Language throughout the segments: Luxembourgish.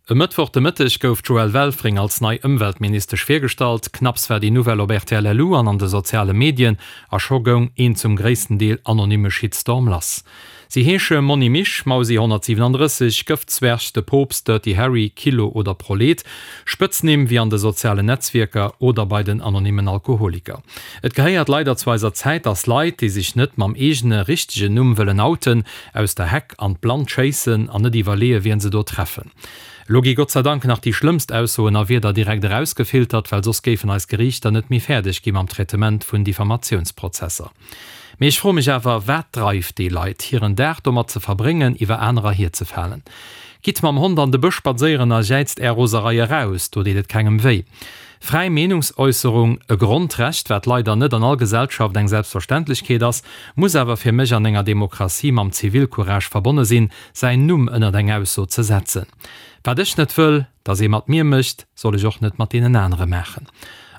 E Mëttwoch de Mëtteg gouf d'Joëlle Welfring als nei Ëmweltministesch virgestallt. Knapps war déi Nouvelle op rtl LU an an de soziale Medien a scho goung een zum gréissten Deel anonymme Shitstorm lass. Si heesche Monni Misch, Mausi 137, Gëftzwerg, De Poopst, Dirty Harry, Kilo oder Prolet. Spëtznimm wéi an de sozialen Netzwierker oder bei den anonymmen Alkoholiker. Et gehéiert leider zu eiser Zäit, dass Leit, déi sech net mam eegene richtegen Numm wëllen outen, aus der Heck an d'Blannt schéissen an net iwwerleeë wien se do treffen. Elo gi Gott sei Dank nach déi schlëmmst Aussoen a Wierder direkt erausgefiltert, well soss géifen eis Geriichter net méi fäerdeg gi mam Traitement vun Diffamatiounsprozesser. Mee ech froe mech awer, wat dreift déi Leit, hiren Dag domat ze verbréngen, iwwer anerer hierzefalen? Gitt mam Hond an de Bësch spadséieren a jäizt är Roserei eraus, do deet et kengem wéi. Fräi Meenungsäusserung, e Grondrecht, wat leider net an all Gesellschaft eng Selbstverständlechkeet ass, muss awer fir mech an enger Demokratie mam Zivilcourage verbonne sinn, säin Numm ënnert eng Ausso ze setzen. Wat ech net wëll, dass ee mat mir mécht, soll ech och net mat deenen anere maachen.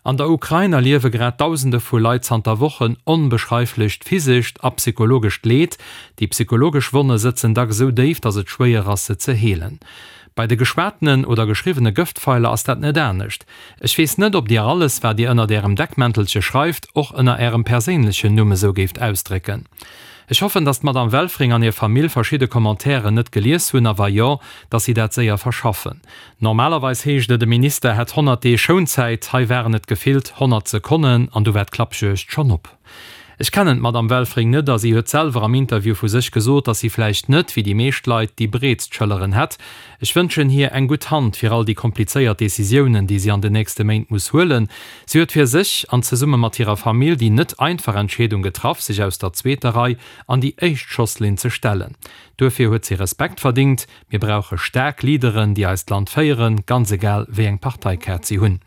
An der Ukrain erliewe grad Dausende vu Leit zanter Wochen onbeschreiflecht physescht a psychologescht Leed. Déi psychologesch Wonne sëtzen dacks esou déif, dass et schwéier ass, se ze heelen. Bei de geschwatenen oder geschriwwene Gëftpfeiler ass dat net anescht. Ech weess net, ob Dir alles, wat Dir ënnert Ärem Deckmäntelche schreift, och ënner Ärem perséinlechen Numm esou géift ausdrécken. Ech hoffen, dass d'Madame Welfring an hir Famill verschidde Commentairen net gelies hunn, a wa jo, dass si dat séier verschaffen. Normalerweis heescht et, e Minister hätt 100 Deeg Schounzäit, hei waren et gefillt 100 Sekonnen an du war d'Klappjuegd schonn op. Ech kennen d'Madame Welfring net a si huet selwer am Interview vu sech gesot, dass si vläicht net, wéi déi meescht Leit, déi breetst Schëlleren hätt. Ech wënschen hir eng gutt Hand fir all déi komplizéiert Decisiounen, déi si an den nächste Méint muss huelen. Si huet fir sech an zesumme mat hirer Famill déi net einfach Entscheedung getraff, sech aus der zweeter Rei an déi éischt Schosslinn ze stellen. Duerfir huet si Respekt verdingt. Mir brauche staark Leaderen, déi eist Land féieren, ganz egal wéi eng Parteikaart si hunn.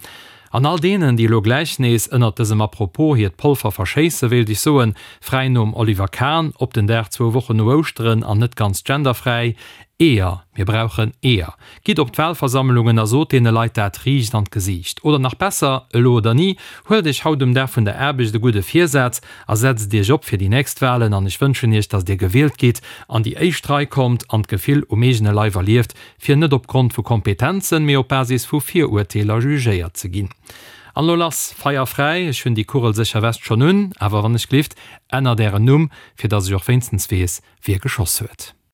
An all deenen, déi elo gläich nees ënnert dësem Apropos hiert Polver verschéisse, wéilt ech soen, fräi nom Oliver Kahn, op den Dag zwou Wochen no Ouschteren an net ganz genderfräi, Eeër, mir brauchen Eeër! Gitt op d'Wahlversammlungen a sot deene Leit dat riicht an d'Gesiicht. Oder nach besser, elo oder ni, huelt iech haut um Dag vun der Aarbecht e gudde Virsaz a setzt iech op fir déi nächst Wahlen an ech wënschen iech, datt dir gewielt gitt, an déi éischt Rei kommt an d'Gefill um eegene Leif erlieft, fir net op Grond vu Kompetenzen, mee op Basis vu Virurteeler jugéiert ze ginn. An elo lass, Feier fräi! Ech hunn déi kugelsécher West schonn un, awer wann ech glift, ännert ären Numm, fir datt ech och wéinstens weess, wie geschoss huet.